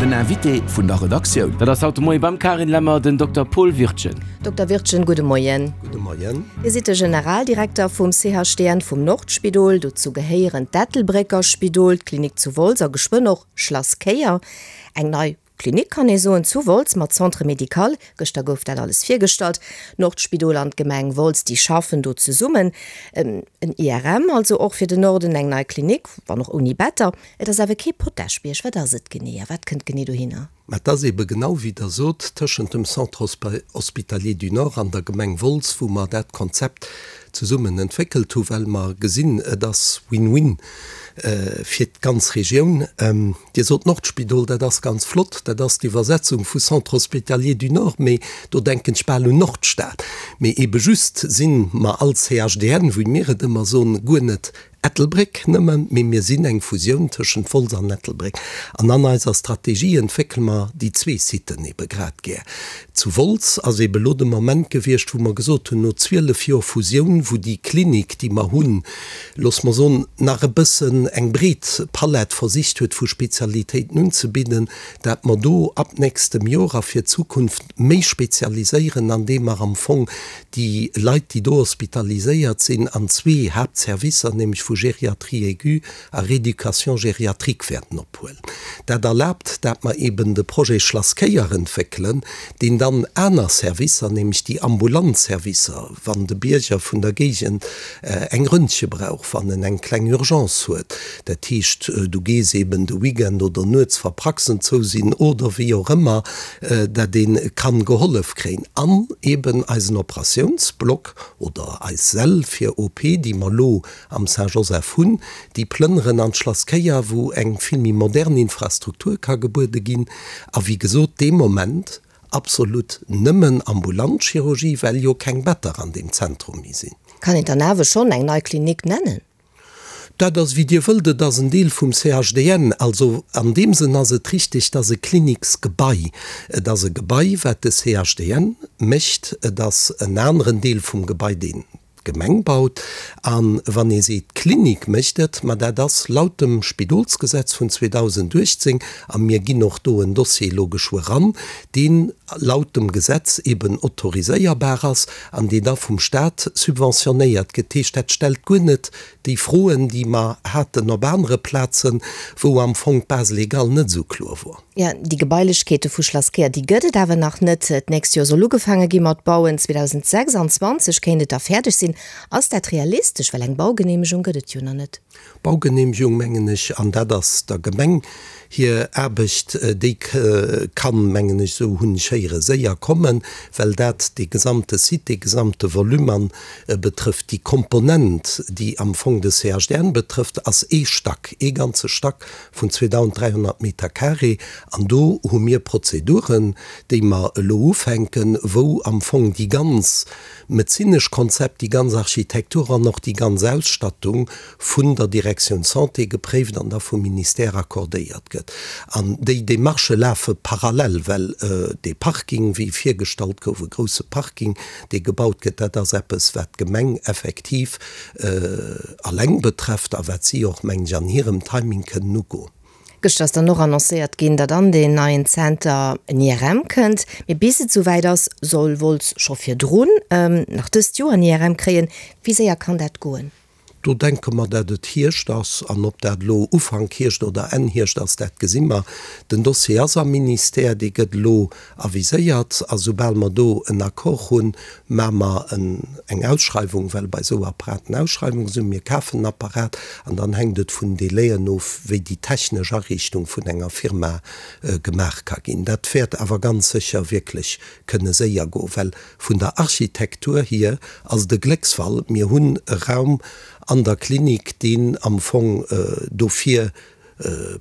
Den Invité vun der Redaktioun. Dat ass haut de Moie beim Carine Lemmer den Dokter Paul Wirtgen. Dokter Wirtgen, gudde Moien. Gudde Moien. Dir sidd de Generaldirekter vum CHDN vum Nordspidol. Dozou gehéieren d'Ettelbrécker Spidol, d'Klinik zu Wolz a geschwënn och Schlass Kéier. Eng nei Klinik kann ee soen, zu Wolz mat Centre médical. Gëschter gouf dat alles virgestallt. D'Nordspidol an d'Gemeng Wolz, déi schaffen do zesummen. En IRM also och fir den Norden, eng nei Klinik, wann och ouni Better. Et ass awer kee Potaschbierg. Wat ass et genee a wat kënnt genee dohinner? Mä et ass eebe genau wéi Der sot, tëschent dem Centre hospitalier du Nord an der Gemeng Wolz, wou mer dat Konzept zesummen entwéckelt hu well mer gesinn, et ass Win-win fir d'ganz Regioun. Dir sot Nordspidol, dat ass ganz flott, dat ass d'Iwwersetzung vu Centre hospitalier du Nord, mee do denken ech bal un Nordstad. Mee eebe just si mer als CHDN, wéi mir et ëmmer soen, guer net Ettelbréck nëmmen, mee mir sinn eng Fusioun tëschent Wolz an Ettelbréck. An an eiser Strategie entwéckele mer déi zwee Siten eebe grad gär. Zu Wolz ass eebe lo de Moment gewiescht, wou mer gesot hunn, no 12 Joer Fusioun, wou déi Klinik, déi mer hunn, loosse mer soen, nach e bëssen eng breet Palett versicht huet vu Spezialitéiten unzebidden, dat mer do ab nächstem Joer a fir d'Zukunft méi spezialiséieren, andeem mer am Fong déi Leit, déi do hospitaliséiert sinn, an zwee Haaptservicer, nämlech vu Gériatrie aiguë a Rééducation gériatrique wäerten ophuelen. Dat erlaabt, dat mer eben de Projet Schlass Kéier entwéckelen, deen dann aner Servicer, nämlech déi ambulant Servicer, wann de Bierger vun der Géigend eng Röntge brauch, wann en eng kleng Urgence huet, dat heescht, du gees eben de Weekend oder nuets, wa Praxen zou sinn oder wéi och ëmmer, dat ee kann gehollef kréien. An eben eisen Operatiounsblock oder eis Säll fir OP, déi mer elo am Saint-Joseph hunn, déi plënneren an d'Schlass Kéier, wou eng vill méi modern Infrastruktur ka gebuede ginn. A wéi gesot, dee Moment absolut nëmmen ambulant Chirurgie, well jo keng Better an deem Zentrum méi sinn. Kann een dann awer schonn eng nei Klinik nennen? Dat ass, wéi Dir wëllt. Et ass en Deel vum CHDN. Also an deem Sënn ass et richtig, et ass e Kliniksgebai. Et ass e Gebai, wat de CHDN mécht. Et ass en aneren Deel vum Gebai, deen d'Gemeng baut. A wann ee seet, d'Klinik mécht et, ma dat ass laut dem Spidolsgesetz vun 2018, a mir ginn och do en Dossier elo geschwë ran, deen laut dem Gesetz eben autoriséierbar ass an deen da vum Stat subventionéiert gëtt. Dat heescht, dat stellt guer net déi Froen, déi mer haten op anere Plazen, wou am Fong d'Base légale net esou kloer wor. Jo, déi Gebailechkeete vu Schlass Kéier, déi gëtt et awer nach net. D'nächst Joer soll ugefaange gi mat bauen, 2026 kéint et da fäerdeg sinn. Ass dat realistesch? Well eng Baugeneemegung gëtt et jo nach net. Baugeneemegung, mengen ech, an dat ass der Gemeng hir Aarbecht, déi kann, mengen ech, esou hunn ech héieren, séier kommen, well dat dee gesamte Site, dee gesamte Volume an betrëfft. Déi Komponent, déi am Fong de CHDN betrëfft, ass ee Stack, ee ganze Stack vun 2.300 Meter carré. An do hu mir Prozeduren, déi mer elo ufänken, wou am Fong déi ganz medezinesch Konzept, déi ganz Architektur an och déi ganz Ausstattung vun der Direktioun Santé gepréift an da vum Ministère accordéiert gëtt. An déi Démarchë lafe parallel, well dee Parking, wéi virgestallt gouf, e grousse Parking, dee gebaut gëtt, dat ass eppes, wat d'Gemeng effektiv alleng betrefft a wat si och, mengen ech, an hirem Timing kënnen ugoen. Gëschter ass dann och annoncéiert ginn, datt an deen neien Zenter en IRM kënnt. Mee bis et souwäit ass, soll Wolz scho virdrun, nach dëst Joer, en IRM kréien. Wéi séier kann dat goen? Do denke mer, dat et Hierscht ass. An ob dat elo Ufank Hierscht oder Enn Hierscht ass, dat gesi mer. Den Dossier ass am Ministère, dee gëtt elo aviséiert. A soubal mer do en Accord hunn, maache mer eng Ausschreiwung, well bei esou Apparaten Ausschreiwunge sinn. Mir kafen en Apparat an dann hänkt et vun Délaiën of, wéi déi technesch Ariichtung vun enger Firma gemaach ka ginn. Dat wäert awer ganz sécher wierklech kënne séier goen, well Vun der Architektur hier ass et e Glécksfall. Mir hunn e Raum an der Klinik, deen am Fong dofir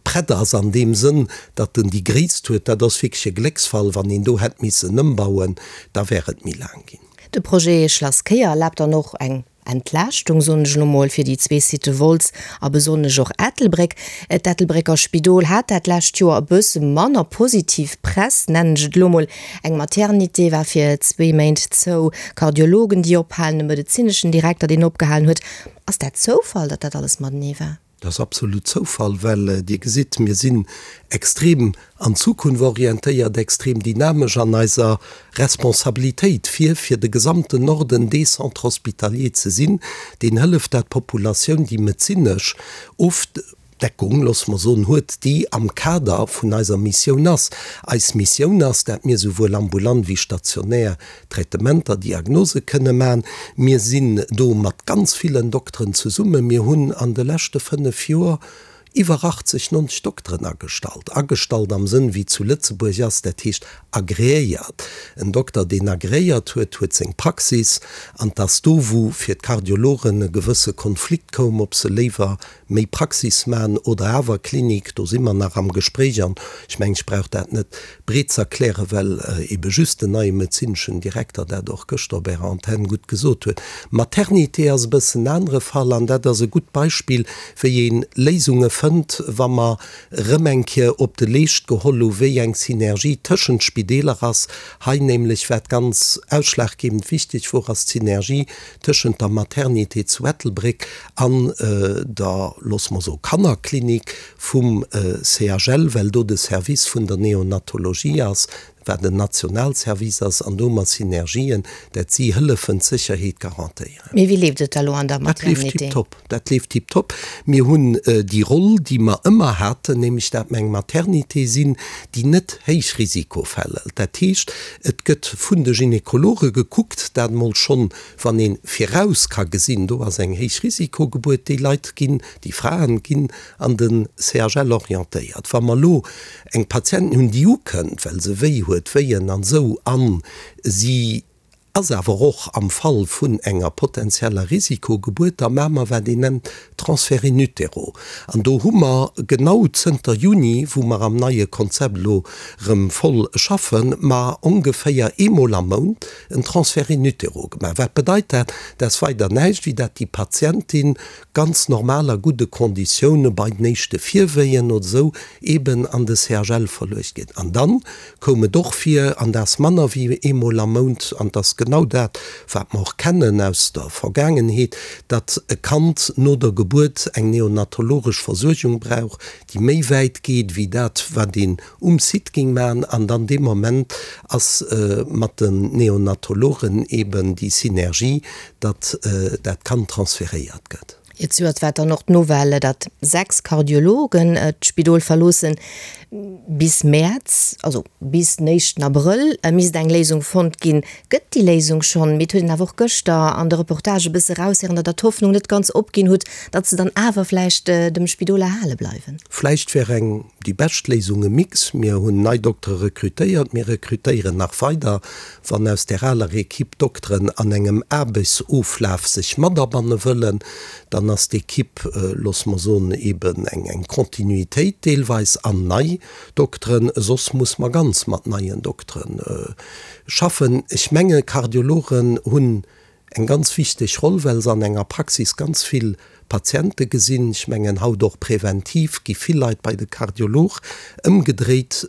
prett ass, an deem Sënn, datt en déi Gréisst huet. Dat ass wierklech e Glécksfall. Wann een do hätt missen ëmbauen, da wär et méi laang ginn. De Projet Schlass Kéier erlaabt dann och eng Entlaaschtung, soen ech elo mol, fir déi zwee Sitë Wolz a besonnesch och Ettelbréck. D'Ettelbrécker Spidol hat dat lescht Joer e bësse manner positiv Press, nennen ech et elo mol. Eng Maternité war fir zwee Méint zou, Kardiologen, déi ophalen, e medezineschen Direkter, deen opgehalen huet. Ass dat Zoufall, datt dat alles matenee war? Dat ass absolut Zoufall, well Dir gesitt, mir sinn extrem an d'Zukunft orientéiert, extrem dynamesch an eiser Responsabilitéit, fir fir de gesamten Norden dee Centre hospitalier ze sinn, deen hëlleft, dat d'Populatioun déi medezinesch Ofdeckung, loosse mer soen, huet, déi am Kader vun eiser Missioun ass. Eis Missioun ass, dat mir souwuel ambulant wéi stationär Traitementer, Diagnose kënne man. Mir sinn do mat ganz villen Dokteren zesummen. Mir hunn an de leschte 5 Joer iwwer 80, 90 Dokteren agestallt. Agestallt am Sënn wéi zu Lëtzebuerg ass, dat heescht agreéiert. En Dokter, deen agreéiert huet, huet seng Praxis. An 't ass do, wou fir d'Kardiologen e gewësse Konflikt koum, ob se léiwer méi Praxis man oder awer Klinik, do si mer nach am Gespréich an ech mengen, ech brauch dat net breet z'erklären, well ebe just den neie medezineschen Direkter dat och gëschter op Ärer Antenn gutt gesot huet. Maternité ass e bëssen en anere Fall an dat ass e gutt Beispill, wéi ee Léisunge fënnt, wa mer erëm eng Kéier op de Leescht geholl hu wéi eng Synergie tëschent Spideeler ass. Hei nämlech, wat ganz ausschlaggebend wichteg wor, ass d'Synergie tëschent der Maternité zu Ettelbréck an der, loosse mer soen, Kannerklinik vum CHL, well do de Service vun der Neonatologie ass, wat en Nationalservice ass, an do hu mer Synergien, dat si hëllefen d'Sécherheet garantéieren. Mee wéi leeft et da lo an der Dat leeft Maternité? tiptop, dat leeft tiptop. Mir hunn déi Roll, déi mer ëmmer haten, nämlech dat mer eng Maternité sinn, déi net Héichrisikofäll hëlt. Dat heescht, et gëtt vun de Gynekologe gekuckt, dat emol schonn Wann ee viraus ka gesinn, do ass eng Héichrisikogebuert, déi Leit ginn, déi Fraen ginn an de CHL orientéiert. Wa mer elo eng Patientin hunn, déi ukënnt, well se wéi huet, Wéien an esou, a si ass awer och am Fall vun enger potenzieller Risikogebuert, da maache mer wat een nennt Transfert in utero. An do hu mer genau zënter Juni, wou mer am neie Konzept elo erëm voll schaffen, mer ongeféier eemol am Mount en Transfert in utero gemaach. Wat bedeit dat? Dat ass weider näischt, wéi dat déi Patientin ganz normal a gudde Konditioune bei den éischte Virwéien oder esou eeben an de CHL verluecht gëtt. An dann koum et och vir, an dat ass manner wéi eemol am Mount, an dat ass genau dat, wat mer och kennen aus der Vergaangenheet, datt e Kand no der Gebuert eng neonatologesch Versuergung brauch, déi méi wäit geet wéi dat, wat een um Site géing maachen. An dann dee Moment ass mat den Neonatologen eeben déi Synergie, datt dat Kand transferéiert gëtt. Zejoert war dann och d'Nouvelle, datt 6 Kardiologen d'Spidol verloossen. Bis Mäerz, also bis den éischten Abrëll, misst eng Léisung fonnt ginn. Gëtt déi Léisung schonn? Mee et huet een awer och gëschter an de Reportage e bësse eraushéieren, datt Der d'Hoffnung net ganz opginn hutt, datt se dann awer vläicht dem Spidol erhale bleiwen. Vläicht wär eng déi bescht Léisung e Mix. Mir hunn nei Doktere rekrutéiert, mir rekrutéieren nach weider. Wann aus där aler Equipe Dokteren an engem Aarbechtsoflaf sech matabanne wëllen, dann ass d'Equipe, loosse mer soen, eben eng Continuitéit deelweis an nei Dokteren. Soss muss mer ganz mat neien Doktere schaffen. Ech menge Kardiologen hunn Eng ganz wichteg Roll, well se an enger Praxis ganz vill Patiente gesinn. Ech mengen, haut och präventiv gi vill Leit bei de Kardiolog. Ëmgedréit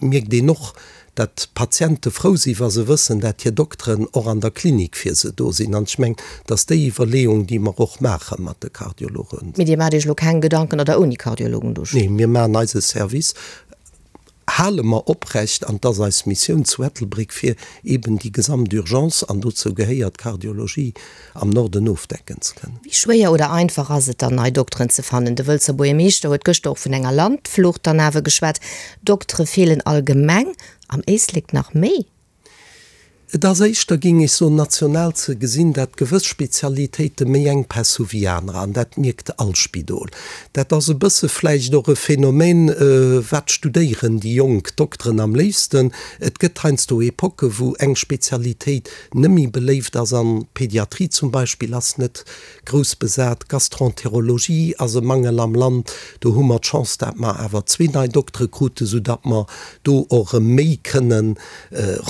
mierkt een och, dat d'Patiente frou si wa se wëssen, dat hir Dokteren och an der Klinik fir se do sinn. An ech mengen, et ass déi Iwwerleeung, déi mer och maache mat de Kardiologen. Mee Dir maacht Iech elo keng Gedanken, datt Der ouni Kardiologen do steet? Nee, mir maachen eise Service. Hale mer oprecht, an 't ass eis Missioun zu Ettelbréck, fir eben déi gesamt Urgence, an dozou gehéiert d'Kardiologie, am Norden ofdecken ze kënnen. Wéi schwéier oder einfach ass et dann, nei Dokteren ze fannen? De Wëlzer Buergermeeschter huet gëschter och vun enger Landflucht dann awer geschwat. Doktere feelen allgemeng, am Éislek nach méi. Et ass éischter, géing ech soen, national ze gesinn, dat gewëss Spezialitéite méi Enkpäss hu wéi anerer, an dat mierkt all Spidol. Dat ass e bësse vläicht och e Phänomen, wat studéieren déi jonk Dokteren am léifsten. Et gëtt heiansdo Epocken, wou eng Spezialitéit net méi beléift ass, an d'Pediatrie zum Beispill ass net grouss besat, d'Gastroenterologie ass e Mangel am Land. Do hu mer d'Chance, dat mer awer zwee nei Doktere kruten, soudatt mer do och erëm méi kënnen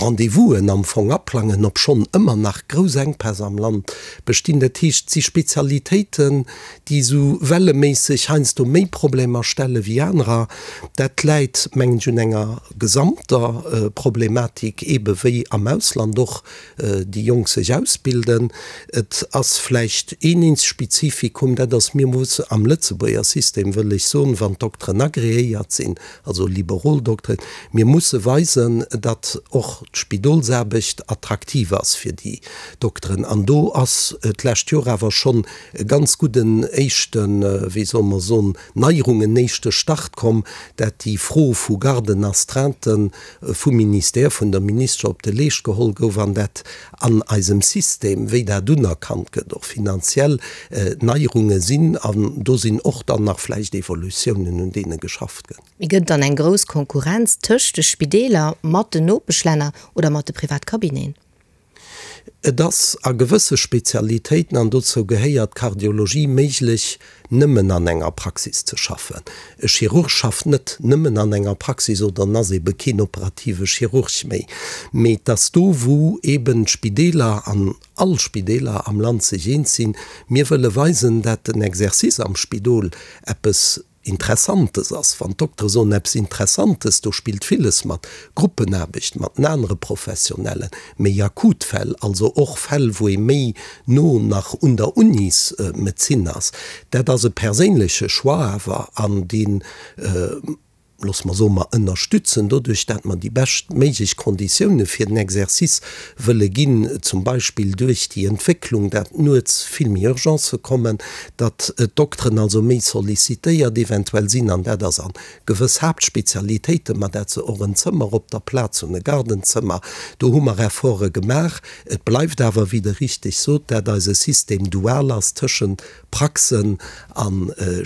Rendez-vousen am Fong. Ausbildung aplangen, obschonn ëmmer nach grouss Enkpäss am Land bestinn. Dat heescht, et si Spezialitéiten, déi esou welleméisseg heiansdo méi Problemer stelle wéi anerer. Dat läit, mengen ech, un enger gesamter Problematik, eebe wéi am Ausland och déi Jonk sech ausbilden. Et ass vläicht een eenzegt Spezifikum, dat ass, mir musse am Lëtzebuerger System, wëll ech soen, wann d'Dokteren agreéiert sinn, also liberol Dokteren, mir musse weisen, datt och d'Spidolsaarbecht attraktiv ass fir déi Dokteren. An do ass d'lescht Joer awer schonn e ganz gudden éischten, wéi solle mer soen, Neierung, en éischte Start komm, dat déi Fro vu Garden astreinten vum Ministère, vun der Ministesche op de Leescht geholl gouf an dat an eisem System, wéi dat unerkannt gëtt, och finanziell Neierunge sinn. An do sinn och dann nach vläicht Evolutiounen, un deene geschafft gëtt. Mee gëtt et dann eng grouss Konkurrenz tëscht de Spideeler mat den Nopeschlänner oder mat de Privatcabineten? Et ass a gewësse Spezialitéiten, an dozou gehéiert d'Kardiologie, méiglech, nëmmen an enger Praxis ze schaffen. E Chirurg schafft net nëmmen an enger Praxis oder en ass ebe keen operative Chirurg méi. Mee et ass do, wou eben d'Spideeler an all Spideeler am Land sech eens sinn, mir wëlle weisen, dat den Exercice am Spidol eppes Interessantes ass. Wann d'Doktere soen, eppes Interessantes, do spillt villes mat, Gruppenaarbecht mat den anere Professionellen, méi akut Fäll, also och Fäll, wou ee méi no nach un der Unismedezin ass. Dat ass e perséinleche Choix awer, an dee loosse mer soen, mer ënnerstützen doduerch, dat mer déi bescht méiglech Konditioune fir den Exercice wëlle ginn, zum Beispill duerch déi Entwécklung, dat nuets vill méi Urgencë kommen, datt d'Dokteren also méi sollicitéiert eventuell sinn, an dat ass a gewëss Haaptspezialitéiten, ma dat se och en Zëmmer op der Plaz hunn, e Gardenzëmmer. Do hu mer Efforte gemaach. Et bleift awer, wéi Der richteg sot, dat eise System dual ass tëschent Praxen a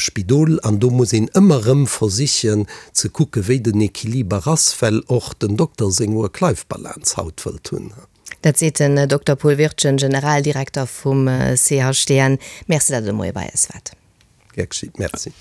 Spidol, an do muss een ëmmer erëm versichen ze kucken, wéi den Equiliber ass, well och den Dokter seng Work-Life-Balance haut wëllt hunn. Dat seet den Dokter Paul Wirtgen, Generaldirekter vum CHDN. Merci, datt Der de Moie bei eis waart. Gär geschitt. Merci.